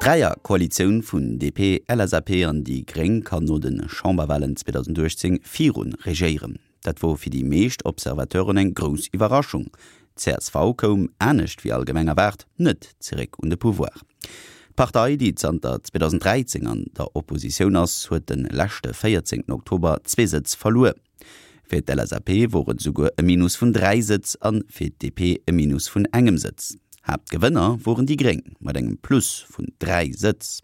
D'Dräierkoalitioun vun DP, LSAP an déi Gréng kann no de Chamberwalen 2018 virun regéieren. Dat wor fir déi meescht Observateuren eng grouss Iwwerraschung. Csv koum, anescht wéi allgemeng erwaart, net zeréck un de Pouvoir. D'Partei, déi zanter 2013 an der Oppositioun ass, huet de leschte 14 Oktober zwee Sëtz verluer. Fir d'LSAP wor et esouguer e Minus vun 3 Sëtz an fir d'DP e Minus vun engem Sëtz. Haaptgewënner woren déi Gréng mat engem Plus vun 3 Sëtz.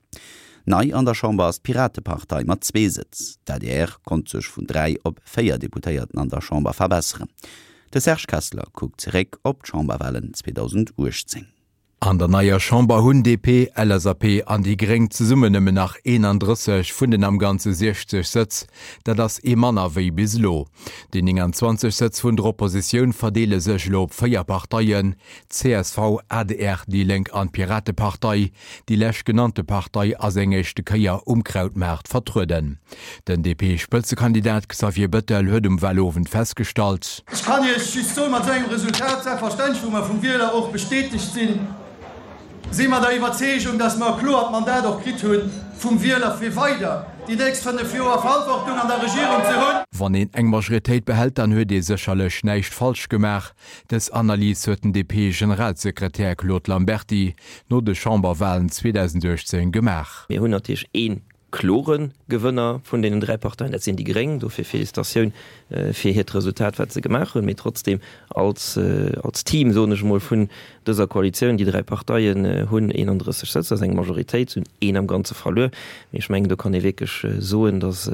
Nei an der Chamber ass d'Piratepartei mat zwee Sëtz. D'adr konnt sech vun 3 op 4 Deputéierten an der Chamber verbesseren. De Serge Kessler kuckt zeréck op d'Chamberwalen 2018. An der neier Chamber hunn DP, LSAP an déi Gréng zesummen nëmmen nach 31 vun den am Ganze 60 Sëtz. Dat ass ee manner wéi bis elo. Déi 29 Sëtz vun der Oppositioun verdeele sech elo op 4 Parteien, csv, adr, déi Lénk an d'Piratepartei. Déi leschtgenannte Partei ass eng éischte Kéier um Krautmaart vertrueden. Den DP-Spëtzekandidat Xavier Bettel huet um Walowend festgestallt. Ech kann Iech just soen, mat esou engem Resultat, selbstverständlech wou mer vum Wieler och bestätegt sinn, si mer der Iwwerzeegung, dass mer e kloert Mandat och kritt hu vum Wieler fir weider déi nächst 5 Joer Verantwortung an der Regierung ze hunn. Wann een eng Majoritéit behält, dann huet ee sécherlech näischt falsch gemaach. Dës Analys huet den DP-Generalsekretär Claude Lamberty no de Chamberwalen 2018 gemaach. Mir hunn natierlech ee klore Gewënner vun deenen 3 Parteien, dat sinn déi Gréng. Dofir Félicitatioun fir hiert Resultat, wat se gemaach hunn. Mee trotzdeem als, als Team, soen ech emol, vun dëser Koalitioun, déi 3 Parteien hunn 31 Sëtz, dat ass eng Majoritéit, se hunn een am Ganze verluer. Mee ech mengen, do kann ee wierklech soen, datt,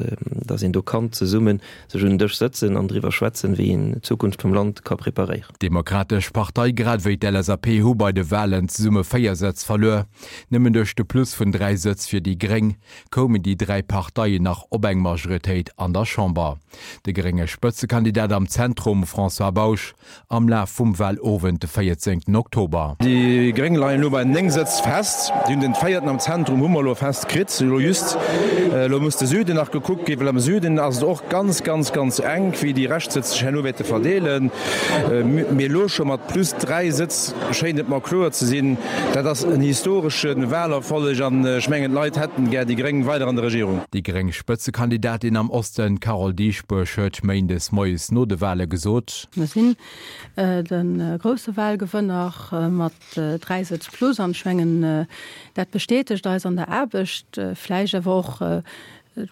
datt een do kann zesummen sech un den Dësch sëtzen an driwwer schwätzen, wéi een d'Zukunft vum Land ka preparéieren. D'Demokratesch Partei grad ewéi d'LSAP hu bei de Walen zesumme 4 Sëtz verluer. Nëmmen duerch de Plus vun 3 Sëtz fir déi Gréng koumen déi 3 Parteien nach op eng Majoritéit an der Chamber. De grénge Spëtzekandidat am Zentrum, François Bausch, am Laf vum Walowend de 14 Oktober. Déi Gréng leien elo bei 9 Sëtz fest. Déi hunn den véierten am Zentrum hu mer elo fest kritt, elo just. Elo muss de Süden nach gekuckt ginn, well am Süden ass et och ganz, ganz, ganz enk, wéi déi Reschtsëtz sech herno wäerte verdeelen. Mee elo scho mat plus 3 Sëtz schéint et mer kloer ze sinn, dat ass en historesche Walerfolleg an ech mengen, d'Leit hätten gär déi Gréng weider an der Regierung. Déi gréng Spëtzekandidatin am Osten, Carole Dieschbourg, huet méindes moies no de Wale gesot. Mir sinn de grousse Wahlgewënner mat 3 Sëtz plus an ech mengen, dat bestätegt eis an der Aarbecht, vläicht awer och,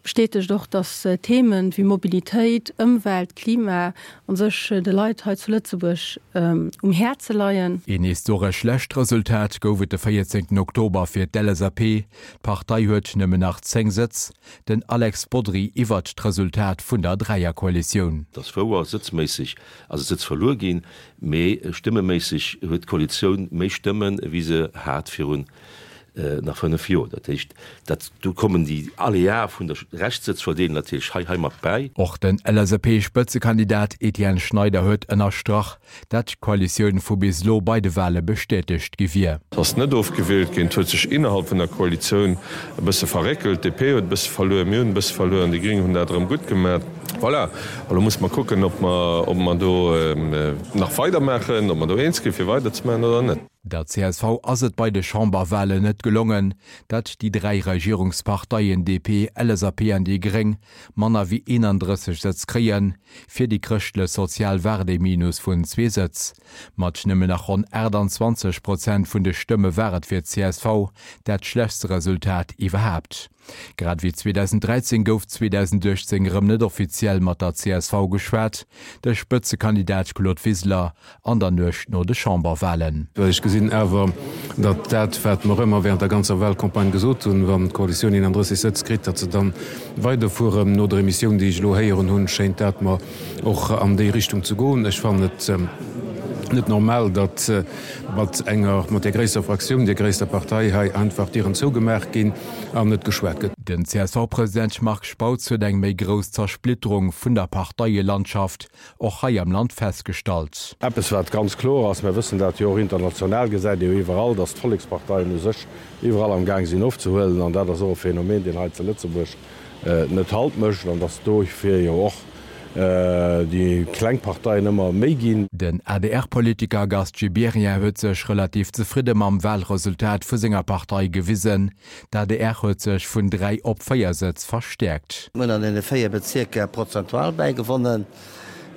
bestätegt och, datt Themen wéi Mobilitéit, Ëmwelt, Klima a sech de Leit hei zu Lëtzebuerg um Häerze leien. Een historesch schlecht Resultat gouf et de 14 Oktober fir d'LSAP. D'Partei huet nëmmen nach 10 Sëtz. Den Alex Bodry iwwert d'Resultat vun der Dräierkoalitioun. Et ass wouer, sëtzméisseg ass e Sëtz verluer ginn, mee stëmmeméisseg huet d'Koalitioun méi Stëmmen, ewéi se hat virun nach 5 Joer. Dat heescht, dat do kommen déi Aléae vun der Rechtssëtzverdeelung natierlech hei heimat bäi. Och den LSAP-Spëtzekandidat Etienne Schneider huet ënnerstrach, dat d'Koalitioun vu bis elo bei de Wale bestätegt gi wier. Et ass net ofgewielt ginn. Et huet sech innerhalb vun der Koalitioun e bësse verréckelt. D'DP huet e bësse verluer, mir hunn e bësse verluer an déi Gring hunn dat erëm gutt gemaach. Voilà, elo musse mer kucken, ob mer, ob mer do nach weidermaachen, ob mer do eens ginn, fir weiderzemaachen oder net. Der csv ass et bei de Chamberwalen net gelongen, dat déi 3 Regierungsparteien DP, LSAP an déi Gréng manner wéi 31 Sëtz kréien. Fir déi Chrëschtlech Sozial war et ee Minus vun zwee Sëtz. Mat nëmmen nach ronn 28 Prozent vun de Stëmme war et fir d'CSV dat schlechtste Resultat iwwerhaapt. Grad ewéi 2013 gouf 2018 erëm net offiziell mat der csv geschwat. De Spëtzekandidat Claude Wiseler an der Nuecht no de Chamberwalen. Ech gesinn awer, datt dat, wat mer ëmmer während der ganzer Wahlcampagne gesot hunn, wann d'Koalitioun 31 Sëtz kritt, datt se da weiderfueren. No der Emissioun, déi ech elo héieren hunn, schéint dat mer och an déi Richtung ze goen. Ech fannen et net normal, datt mat enger, mat där gréisster Fraktioun, där gréisster Partei hei einfach d'Dieren zougemaach ginn an net geschwat gëtt. Den CSV-President Marc Spautz huet eng méi grouss Zersplitterung vun der Parteielandschaft och hei am Land festgestallt. Eppes wat ganz kloer ass, mir wëssen dat jo och international, gesäit ee jo iwwerall, datt d'Volleksparteien u sech iwwerall am Gaang sinn ofzehuelen an dat ass och e Phänomen, deen hei zu Lëtzebuerg net Halt mécht an datt dofir jo och. Déi kleng Parteien ëmmer méi ginn. Den ADR-Politiker Gast Gibéryen huet sech relativ zefridde mam Walresultat vu senger Partei gewisen. D'adr huet sech vun 3 op 4 Sëtz verstäerkt. Mir hunn an deene 4 Bezierker prozentual bäigewonnen.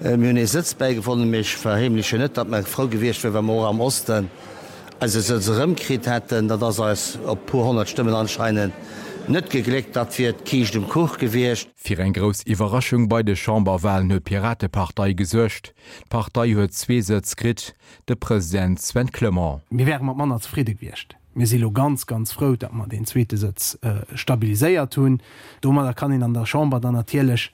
Mir hunn ee Sëtz bäigewonnen, mee ech verheemlechen net, datt mer frou gewiescht wieren, wa mer och am Osten eise Sëtz erëmkritt hätten. Dat ass eis op puer 100 Stëmmen anscheinend net gegléckt. Dat wier d'Kiischt um Kuch gewiescht. Fir eng grouss Iwwerraschung bei de Chamberwalen huet d'Piratepartei gesuergt. D'Partei huet zwee Sëtz kritt, de President Sven Clement. Mir wäre mat manner zefridde gewiescht. Mir si lo ganz, ganz frou, datt mer deen zweete Sëtz stabiliséiert hunn. Domadder kann een an der Chamber dann natierlech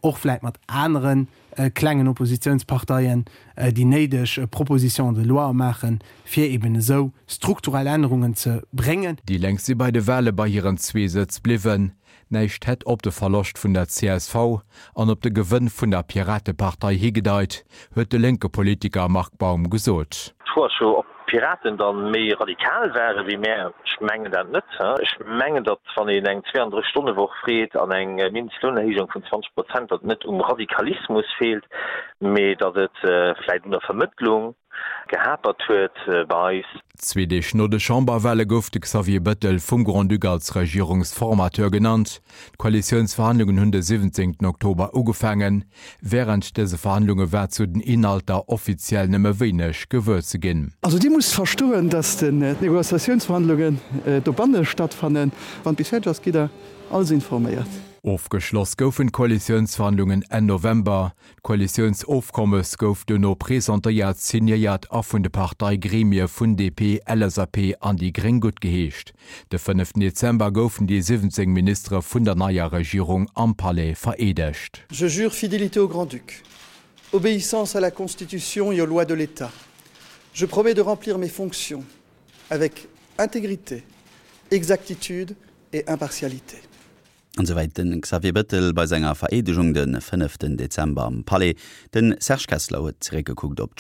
och vläit mat anere klengen Oppositionsparteien déi néideg Propositions de loi maachen, fir eben esou strukturell Ännerungen ze bréngen. Déi Lénk si bei de Wale bei hiren zwee Sëtz bliwwen. Näischt hätt op de Verloscht vun der csv an op de Gewënn vun der Piratepartei higedeit, huet de lénke Politiker Marc Baum gesot. D'Fro ass jo, ob d'Piraten da méi radikal ware wéi mär. Ech mengen dat net. Ech mengen, datt wann een eng 32 Stonne Woch freet an eng Mindestlounerhéijung vun 20 Prozent, datt et net um Radikalismus feelt, mee datt et vläicht un der Vermëttlung gehapert huet bei eis. Zwee Deeg no de Chamberwale gouf de Xavier Bettel vum Grand-Duc als Regierungsformateur genannt. D'Koalitiounsverhandlungen hunn de 17 Oktober ugefaangen. Wärend dëse Verhandlunge war zu den Inhalter offiziell nëmme wéineg gewuer ze ginn. Also Dir musst verstoen, dass d'Negociatiounsverhandlungen dobanne stattfannen. Wann et bis fäerdeg ass, gitt Der alles informéiert. Ofgeschloss goufen d'Koalitiounsverhandlungen Enn November. D'Koalitiounsofkommes gouf duerno presentéiert, signéiert a vun de Parteigremie vun DP, LSAP an déi Gréng guttgeheescht. De fënneften Dezember goufen déi 17 Ministere vun der neier Regierung am Palais vereedegt. Je jure fidélité au Grand-Duc, obéissance à la Constitution et aux lois de l'État. Je promets de remplir mes fonctions avec intégrité, exactitude et impartialité. An souwäit de Xavier Bëttel bei senger Vereedegung de fënneften Dezember am Palais. De Serge Kessler huet zeréckgekuckt op.